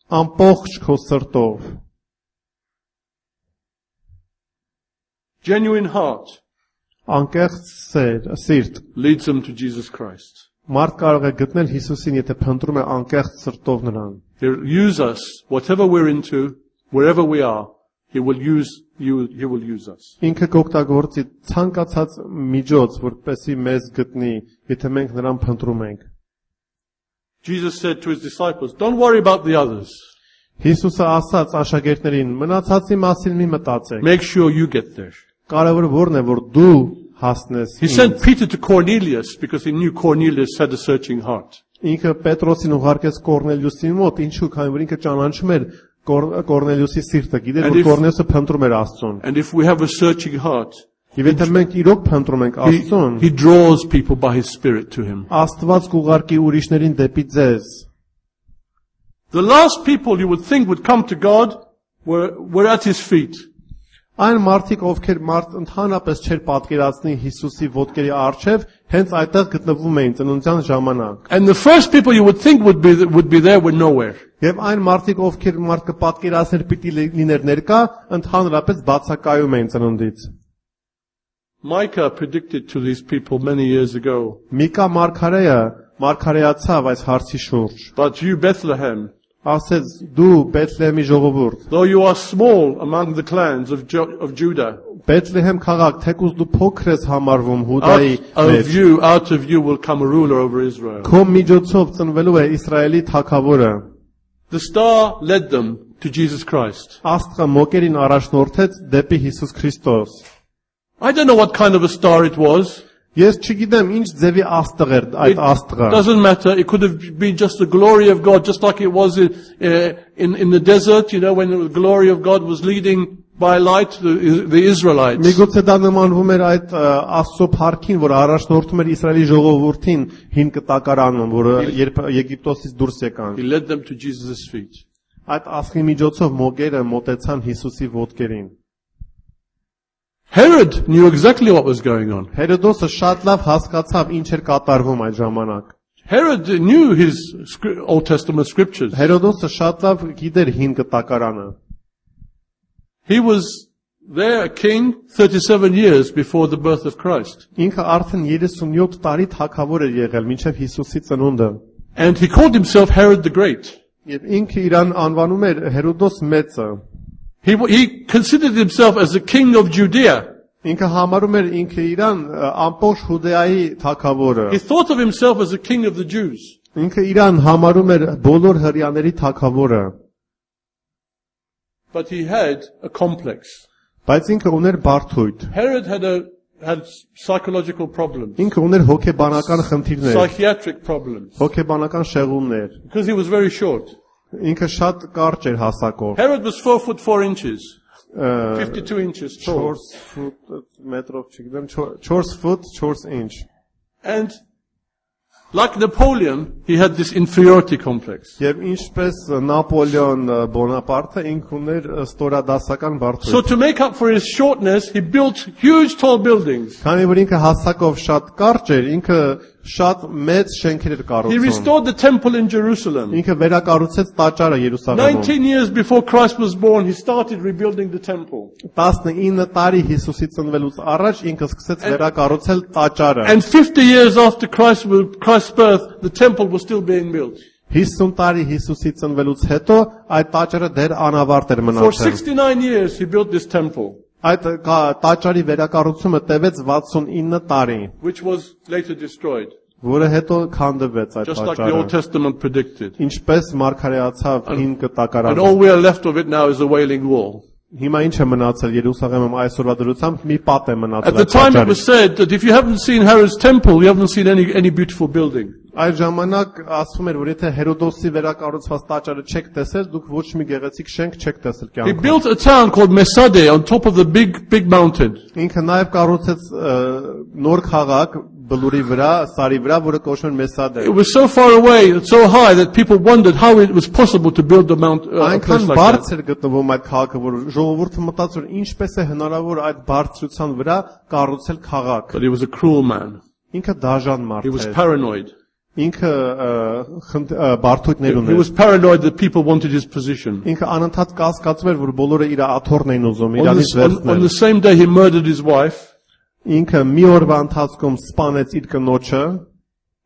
Ամբողջ քո սրտով։ Genuine heart Անկեղծ սիրտ։ leads them to Jesus Christ. Մարդ կարող է գտնել Հիսուսին, եթե փնտրում է անկեղծ սրտով նրան։ He'll use us, whatever we're into, wherever we are, He will use us. Ինքը կօգտագործի ցանկացած միջոց, որպեսզի մեզ գտնի, եթե մենք նրան փնտրում ենք։ Jesus said to His disciples, don't worry about the others. Հիսուսը ասաց աշակերտներին. մնացածի մասին մի մտածեք։ Make sure you get there. Կարևորը որն է, որ դու հասնես։ He sent Peter to Cornelius because he knew Cornelius had a searching heart. Ինքը Պետրոսին ուղարկեց Կորնելիուսին մոտ, ինչու, քանի որ ինքը ճանաչում էր Կորնելիուսի սիրտը, գիտեր, որ Կորնելիուսը փնտրում էր Աստծուն։ And if we have a searching heart, Եվ եթե մենք իրոք փնտրում ենք Աստծուն, He draws people by His Spirit to Him. Աստված կուղարկի ուրիշներին դեպի ձեզ։ The last people you would think would come to God were at His feet. Այն մարդիկ, ովքեր ընդհանրապես չէր պատկերացնի Հիսուսի ոտքերի առջև, հենց այդտեղ գտնվում էին ծնունդյան ժամանակ։ And the first people you would think would be there were nowhere. Եվ այն մարդիկ, ովքեր մարդ կպատկերացներ պիտի լիներ ներկա, ընդհանրապես բացակայում էին ծնունդից։ Micah predicted to these people many years ago. Միկա մարգարեացավ այս հարցի շուրջ։ But you, Bethlehem, Ասեց դու Բեթլեհեմի ժողովուրդ, though you are small among the clans of Judah, Բեթլեհեմ քաղաք, թեկուզ դու փոքր ես համարվում Հուդայի մեջ, out of you will come a ruler over Israel. քո միջոցով ծնվելու է Իսրայելի թագավորը։ The star led them to Jesus Christ. Աստղը մոկերին առաջնորդեց դեպի Հիսուս Քրիստոս։ I don't know what kind of a star it was. Ես չգիտեմ ինչ ձևի աստղ էր այդ աստղը։ Doesn't matter. It could have been just the glory of God, just like it was in the desert, when the glory of God was leading by light the Israelites. Միգուցե դա նմանվում էր այդ Աստծո փառքին, որ առաջնորդում էր Իսրայելի ժողովրդին հին կտակարանում, որը երբ Եգիպտոսից դուրս եկան։ He led them to Jesus' feet. Այդ աստղի միջոցով մոգերը մոտեցան Հիսուսի ոտքերին։ Herod knew exactly what was going on. Հերոդոսը շատ լավ հասկացավ ինչ էր կատարվում այդ ժամանակ։ Herod knew his Old Testament scriptures. Հերոդոսը շատ լավ գիտեր հին կտակարանը։ He was there a king 37 years before the birth of Christ. Ինքը արդեն 37 տարի թագավոր էր եղել մինչև Հիսուսի ծնունդը։ And he called himself Herod the Great. Եվ ինքը իրան անվանում էր Հերոդոս մեծը։ He considered himself as the king of Judea. Ինքը համարում էր ինքը իրան ամբողջ Հուդեայի թագավորը։ He thought of himself as the king of the Jews. Ինքը իրան համարում էր բոլոր հրյաների թագավորը։ But he had a complex. Բայց ինքը ուներ բարդույթ։ Herod had psychological problems. Ինքը ուներ հոգեբանական խնդիրներ, Psychiatric problems. հոգեբանական շեղումներ։ Because he was very short. Ինքը շատ կարճ էր հասակով։ Herod was 4 foot 4 inches. 52 inches tall. 4 ֆուտ մետրով չգիտեմ 4 ֆուտ 4 ինչ։ And like Napoleon, he had this inferiority complex. Եվ ինչպես Նապոլեոն Բոնապարտը ինքը ուներ ստորադասական So բարդույթ։ to make up for his shortness, he built huge tall buildings. Քանի որ ինքը հասակով շատ կարճ էր, ինքը շատ մեծ շենքեր էր He կառուցում։ restored the temple in Jerusalem. Ինքը վերակառուցեց տաճարը Երուսաղեմում։ 19 years before Christ was born, he started rebuilding the temple. 19 տարի Հիսուսի ծնվելուց առաջ ինքը սկսեց վերակառուցել տաճարը։ And 50 years after Christ's birth, the temple was still being built. 50 տարի Հիսուսի ծնվելուց հետո այդ տաճարը դեռ անավարտ էր For մնացել։ 69 years, he built this temple, Այդ տաճարի վերակառուցումը տևեց 69 տարի, which was later destroyed, որը հետո քանդվեց այդ just like the Old տաճարը։ Testament predicted. Ինչպես մարգարեացավ հին And կտակարանը։ all we are left of it now is the Wailing Wall. Հիմա ինչ է մնացել Երուսաղեմում այսօրվա դրությամբ մի պատ է At մնացել the այդ time it տաճարից։ was said that if you haven't seen Herod's temple, you haven't seen any beautiful building. Այդ ժամանակ ասվում էր, որ եթե Հերոդոսի վերակառուցված տաճարը չեք տեսել, դուք ոչ մի գեղեցիկ շենք չեք տեսել He կյանքում։ built a town called Mesade on top of the big mountain. Ինքը նաև կառուցեց նոր քաղաք բլուրի վրա, սարի վրա, որը կոչվում է Մեսադե։ It was so far away, so high that people wondered how it was possible to build a place Այնքան like that. բարձր գտնվում այդ քաղաքը, որ ժողովուրդը մտածում էր ինչպես է հնարավոր այդ բարձրության վրա կառուցել քաղաք։ But he was a cruel man. Ինքը դաժան He մարդ was էր։ paranoid. Ինքը բարդույթներ He ուներ։ was paranoid that people wanted his position. Ինքը անընդհատ կասկածում էր, որ բոլորը իր աթոռն էին ուզում, On իրանից the վերցնել։ same day he murdered his wife Ինքը մի օրվա ընթացքում սպանեց իր կնոջը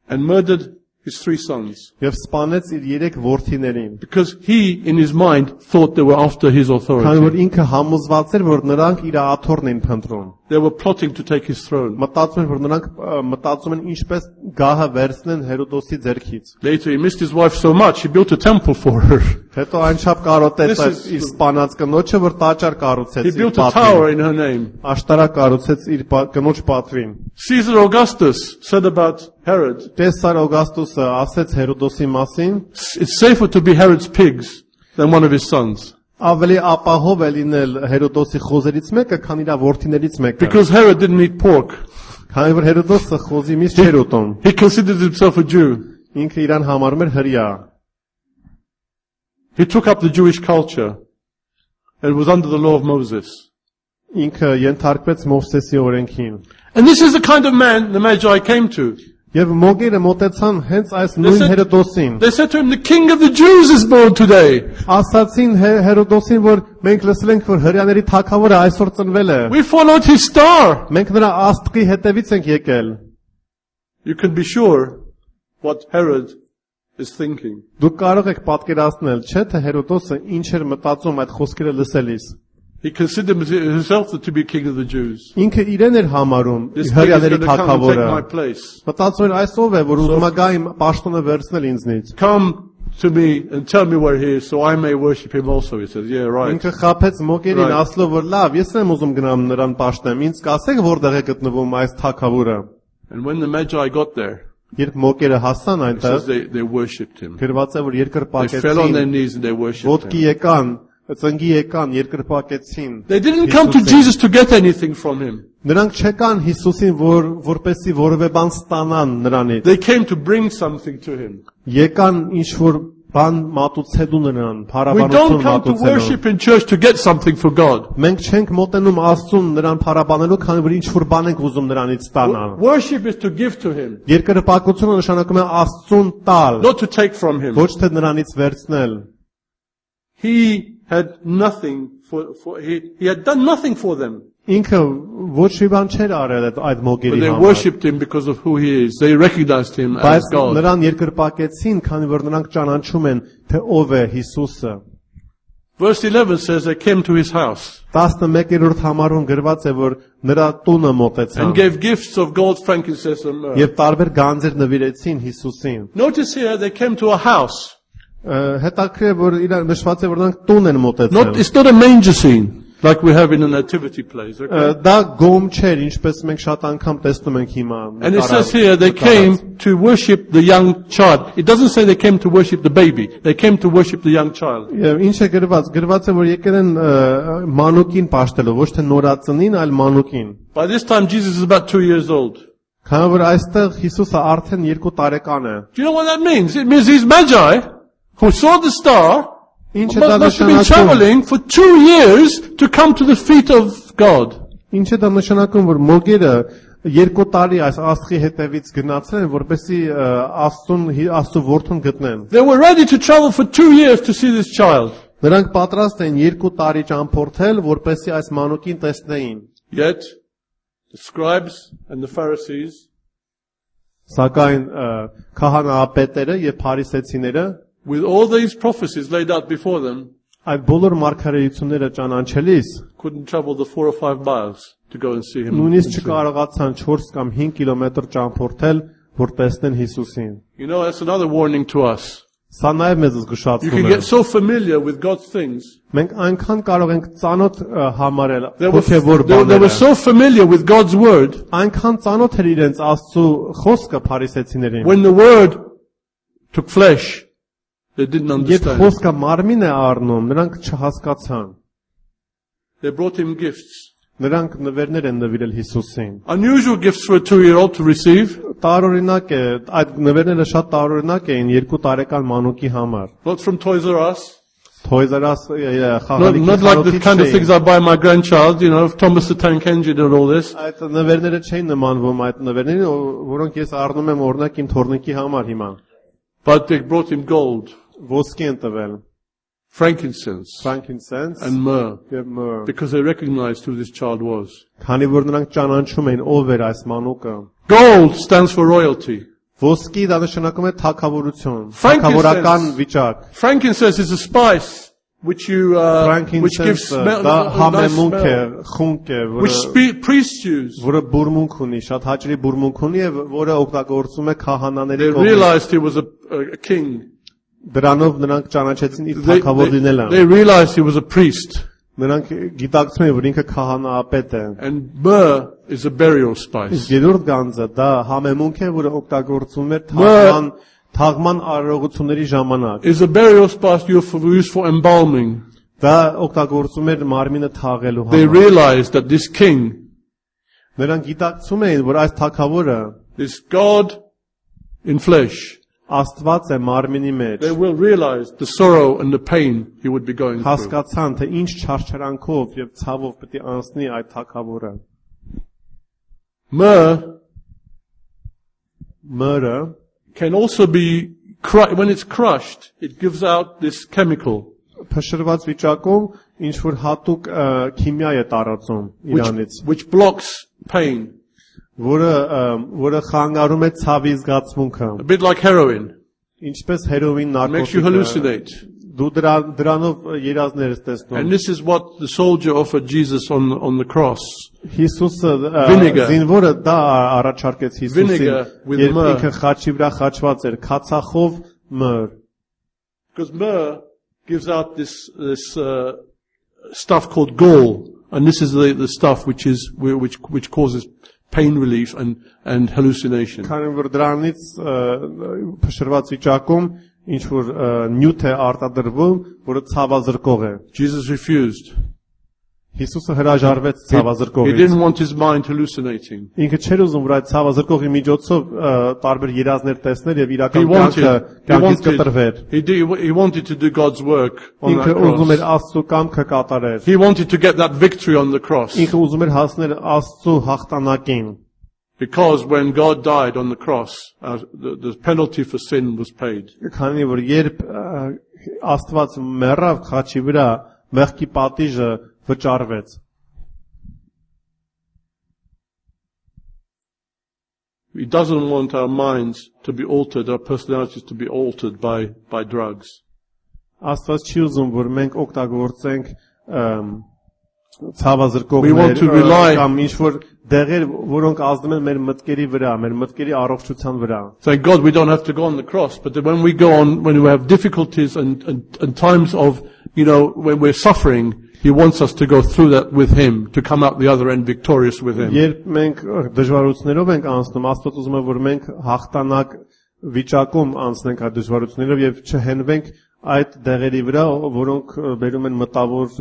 and murdered his 3 sons. եւ սպանեց իր 3 որդիներին։ Because he, in his mind, thought they were after his Քանի որ authority. ինքը համոզված էր, որ նրանք իր աթոռն են փնտրում։ They were plotting to take his throne. Մտածում են, որ նրանք մտածում են ինչպես գահը վերցնեն Հերոդոսի ձեռքից։ Later he missed his wife so much, he built a temple for her. Հետո այնչափ կարոտեց This այդ is- իր սպանած կնոջը, որ տաճար կառուցեց He իր built a tower պատվին։ in her name. Աշտարակ կառուցեց իր կնոջ պատվին։ Caesar Augustus said about Herod, Կեսար Օգաստոսը ասեց Հերոդոսի մասին, it's safer to be Herod's pigs than one of his sons. ավելի ապահով է լինել Հերոդոսի խոզերից մեկը, քան իր որդիներից մեկը։ Because Herod didn't eat pork. Քանի որ Հերոդոսը խոզի միս չէր ուտում, He considered himself a Jew. ինքը իրան համարում էր հրյա։ He took up the Jewish culture and was under the law of Moses. Ինքը ենթարկվեց Մովսեսի օրենքին։ And this is the kind of man the Magi came to. Եվ մոգերը մոտեցան հենց այս նույն said- Հերոդոսին։ They said to him, the king of the Jews is born today. Ասացին Հերոդոսին, որ մենք լսել ենք, որ հրյաների թագավորը այսօր ծնվել է։ We followed his star. Մենք նրա աստղի հետևից ենք եկել։ You can be sure what Herod is thinking. Դուք կարող եք պատկերացնել, չէ՞, թե Հերոդոսը ինչ էր մտածում այդ խոսքերը լսելիս։ He considered himself to be king of the Jews. Ինքը իրեն էր համարում This king is հրյաների going to come and take թագավորը։ my place. Մտածում էր այս ով է, որ ուզում է գա իմ պաշտոնը վերցնել ինձնից։ Come to me and tell me where he is so I may worship him also. He says, yeah, right. Ինքը խափեց մոգերին, Right. ասելով, որ լավ, ես եմ ուզում գնամ նրան պաշտեմ, ինձ կասեք որտեղ է գտնվում այս թագավորը։ And when the Magi got there, Երբ մոկերը հասան it says այնտեղ, they worshipped him. գրված է որ They fell on their երկրպագեցին, knees and they worshipped ոտքի him. եկան, ծնգի եկան, երկրպագեցին։ They didn't come to Հիսուսին։ Jesus to get anything from him. Նրանք չեկան Հիսուսին, որպեսի որևէ բան ստանան նրանից։ They came to bring something to him. Եկան ինչ որ բան մատուցելու նրան, We փառաբանություն don't come to մատուցելու։ worship in church to get something for God. Մենք չենք մոտենում Աստծուն նրան փառաբանելու, քանի որ ինչ որ բան ենք ուզում նրանից ստանալ։ Worship is to give to him, Երկրպագությունը նշանակում է Աստծուն տալ, not to take from him. ոչ թե նրանից վերցնել։ He had nothing he had done nothing for them. Ինքը ոչ մի բան չէր արել այդ But մոգերի they համար։ worshipped him because of who he is. They recognized him as Բայց God. նրան երկրպագեցին, քանի որ նրանք ճանաչում են, թե ով է Հիսուսը։ Verse 11 says they came to his house 11-րդ համարում գրված է, որ նրա տունը մոտեցան and gave gifts of gold, frankincense and myrrh. եւ տարբեր գանձեր նվիրեցին Հիսուսին։ Notice here they came to a house. Հետաքրքիր է, որ իրար նշված է, որ նրանք տուն են մոտեցել։ It's not a manger scene like we have in the nativity plays. Okay? Դա գոմ չէր, ինչպես մենք շատ անգամ տեսնում ենք հիմա։ And it says here they came to worship the young child. It doesn't say they came to worship the baby. They came to worship the young child. Եվ ինչ է գրված, գրված է, որ եկել են մանուկին պաշտելու, ոչ թե նորածնին, այլ մանուկին։ By this time Jesus is about 2 years old. Քանի որ այստեղ Հիսուսը արդեն 2 տարեկան է։ Do you know what that means? It means these magi who saw the star Ինչ է դա must have been նշանակում։ traveling for 2 years to come to the feet of God. Ինչ է դա նշանակում, որ մոգերը 2 տարի այս աստղի հետևից գնացել են, որպեսզի Աստծո որդուն գտնեն։ They were ready to travel for 2 years to see this child. Նրանք պատրաստ են 2 տարի ճամփորդել, որպեսզի այս մանուկին տեսնեին։ Yet the scribes and the Pharisees, Սակայն քահանայապետերը եւ փարիսեցիները with all these prophecies laid out before them, այդ բոլոր մարգարեությունները ճանաչելիս couldn't travel the 4 or 5 miles to go and see him. նույնիսկ չկարողացան 4 կամ 5 կիլոմետր ճամփորդել, որ տեսնեն Հիսուսին։ You know, that's another warning to us. Սա նաև մեզ You զգուշացնում can է։ get so familiar with God's things. Մենք այնքան կարող ենք ծանոթ համարել They հոգևոր were բաները։ so familiar with God's word. Այնքան ծանոթ էր իրենց Աստծո խոսքը փարիսեցիներին։ When the word took flesh, they didn't Երբ understand. խոսքը մարմին է առնում, նրանք չհասկացան։ They brought him gifts. Նրանք նվերներ են նվիրել Հիսուսին։ Unusual gifts for a 2-year-old to receive. Տարօրինակ է, այդ նվերները շատ տարօրինակ էին 2 տարեկան մանուկի համար։ Not from Toys R Us. Toys R Us խաղալիքի Not like the խանութից kind of things չէին։ I buy my grandchild, you know, Thomas the Tank Engine and all this. Այդ նվերները չէին նմանվում այդ նվերներին, որոնք ես առնում եմ օրինակ իմ թորնիկի համար հիմա։ But they brought him gold, Ոսկի են տվել, frankincense, frankincense and myrrh, եւ myrrh, because they recognized who this child was. քանի որ նրանք ճանաչում էին ով էր այս մանուկը։ Gold stands for royalty. Ոսկի դա նշանակում է թագավորություն, Frankincense. թագավորական վիճակ։ Frankincense is a spice which which gives Frankincense smell, դա a nice համեմունք է, smell, խունկ է, which priests use. որը բուրմունք ունի, շատ հաճելի բուրմունք ունի եւ որը օգտագործում է քահանաների They կողմից։ realized he was a king. Դրանով նրանք ճանաչեցին իր թագավոր լինելը։ They realized he was a priest. Նրանք գիտակցում են, որ ինքը քահանայապետ է։ And myrrh is a burial spice. Իսկ երրորդ գանձը դա համեմունք է, որը օգտագործվում էր թաղման արարողությունների ժամանակ։ Is a burial spice used for embalming. Դա օգտագործում էր մարմինը թաղելու They համար։ realized that this king, Նրանք գիտակցում էին, որ այս թագավորը this God in flesh, Աստված է մարմինի մեջ։ they will realize the sorrow and the pain he would be going through. Հասկացան, թե ինչ չարչարանքով եւ ցավով պետք է անցնի այդ թագավորը։ Մyrrh Can also be, when it's crushed, it gives out this chemical փշրված վիճակում ինչ որ հատուկ քիմիա է տարածում իրանից, which blocks pain. որը խանգարում է ցավի զգացմունքը, A bit like heroin. ինչպես հերոին Makes you նարկոտիկը։ hallucinate. Դու դրանով երազներ ես տեսնում։ And this is what the soldier offered Jesus on the cross. Հիսուսը Vinegar. զինվորը դա առաջարկեց Հիսուսին, Vinegar with երբ myrrh. ինքը խաչի վրա խաչված էր, քացախով մըր։ Because myrrh gives out this stuff called gall. And this is the stuff which causes pain relief and hallucination. Քանի որ դրանից փշրված վիճակում ինչ որ նյութ է արտադրվում, որը ցավազրկող է։ Jesus refused. Հիսուսը հրաժարվեց He ցավազրկողից։ didn't want his mind hallucinating. Ինքը չէր ուզում որ այդ ցավազրկողի միջոցով տարբեր երազներ տեսներ եւ He իրական կյանքից կտրվեր։ he wanted to do God's work on that Ինքը ուզում էր cross. Աստծո կամքը կատարեր։ He wanted to get that victory on the cross. Ինքը ուզում էր հասնել Աստծո հաղթանակին։ Because when God died on the cross, the penalty for sin was paid. Քանի որ երբ Աստված մեռավ խաչի վրա, մեղքի պատիժը վճարվեց։ He doesn't want our minds to be altered, our personalities to be altered by drugs. Աստված չի ուզում որ մենք օգտագործենք We want ցավազրկողներ to rely- կամ ինչ որ դեղեր, որոնք ազդում են մեր մտքերի վրա, մեր մտքերի առողջության վրա։ Thank God we don't have to go on the cross, but when we go on, when we have difficulties and times of, when we're suffering, He wants us to go through that with Him, to come out the other end victorious with Him. Երբ մենք դժվարություններով ենք անցնում, Աստված ուզում է որ մենք հաղթանակ վիճակում անցնենք այդ դժվարություններով եւ չհենվենք այդ դեղերի վրա, որոնք բերում են մտավոր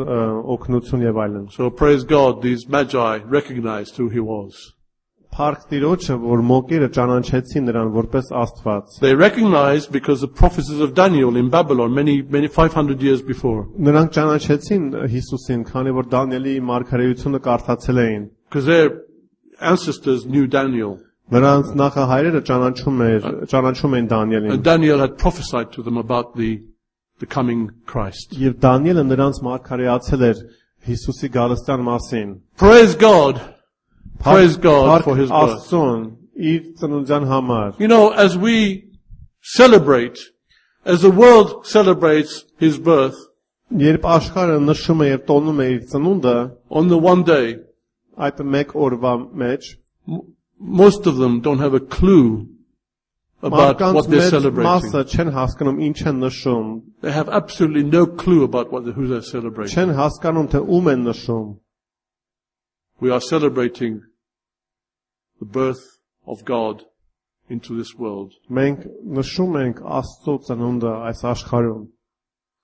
օգնություն եւ այլն։ So praise God, these magi recognized who He was. Փառք Տիրոջը, որ մոկերը ճանաչեցին նրան որպես Աստված։ They recognized because the prophecies of Daniel in Babylon many 500 years before. Նրանք ճանաչեցին Հիսուսին, քանի որ Դանիելի մարգարեությունը կարդացել էին։ Because their ancestors knew Daniel. Նրանց նախահայրերը ճանաչում էին Դանիելին։ And Daniel had prophesied to them about the coming Christ. Եվ Դանիելը նրանց մարգարեացել էր Հիսուսի գալստյան մասին։ Praise God. Praise God for His birth. Աստծուն իր ծնունդյան համար։ As we celebrate, as the world celebrates His birth, Երբ աշխարհը նշում է եւ տոնում է իր ծնունդը, on the one day, այդ մեկ օրվա մեջ most of them don't have a clue about what they're celebrating. Մասը չեն հասկանում ինչ են նշում, They have absolutely no clue about who they're celebrating. չեն հասկանում թե ում են նշում։ We are celebrating the birth of God into this world. Մենք նշում ենք Աստծո ծնունդը այս աշխարհում։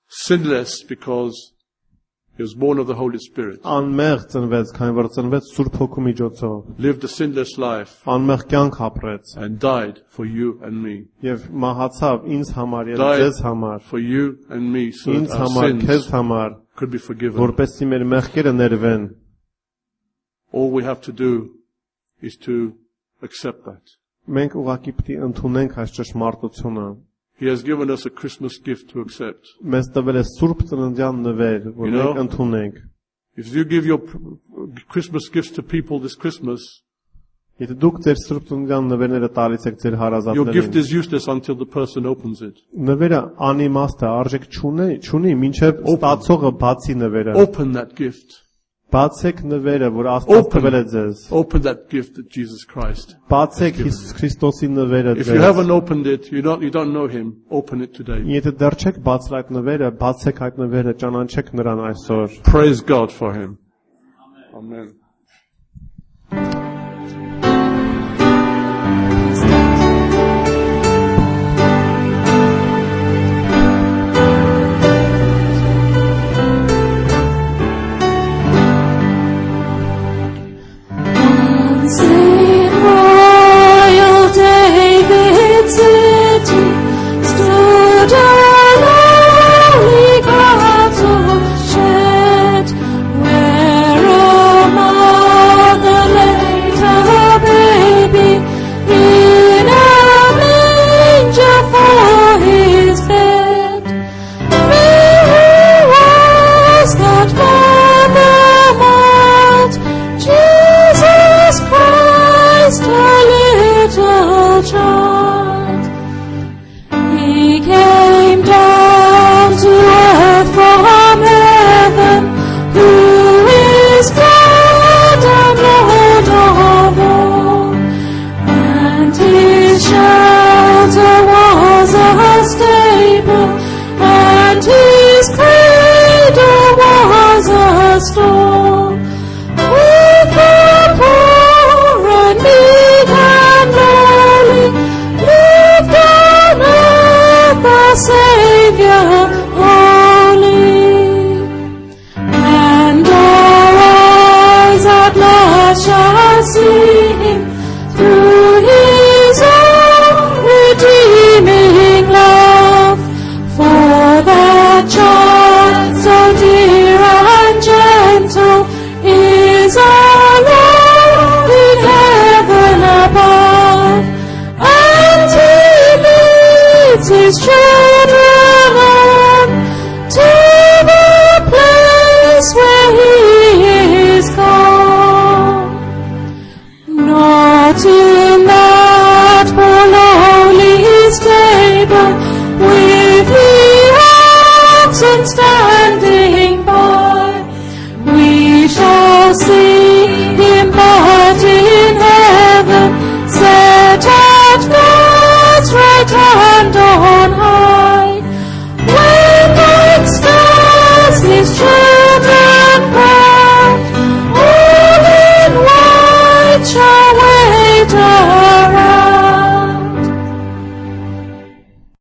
Sinless because He was born of the Holy Spirit. Անմեղ ծնվեց, քանի որ ծնվեց Սուրբ Հոգու միջոցով։ Lived a sinless life Անմեղ կյանք ապրեց and died for you and me. եւ մահացավ ինձ համար եւ Died ձեզ համար, for you and me so ինձ that our համար, քեզ sins համար, could be forgiven. որպեսզի մեր մեղքերը ներվեն։ All we have to do is to accept that. Մենք ուղղակի պետք է ընդունենք այս ճշմարտությունը։ He has given us a Christmas gift to accept. Մեզ տվել է Սուրբ Ծննդյան նվեր, որ մենք ընդունենք։ If you give your Christmas gifts to people this Christmas, Եթե դուք ձեր Սուրբ Ծննդյան նվերները տալիս եք ձեր your gift հարազատներին, is useless until the person opens it. նվերը անիմաստ է, արժեք չունի, մինչև ստացողը բացի նվերը։ Open that gift. Բացեք նվերը, որ Աստված տվել է ձեզ։ Open that gift that Jesus Christ. Բացեք Հիսուս Քրիստոսի նվերը If you ձեզ։ haven't opened it, you don't know Him, open it today. Եթե դեռ չեք բացել այդ նվերը, բացեք այդ նվերը, ճանաչեք նրան այսօր։ Praise God for Him. Amen. Where, oh my դրենք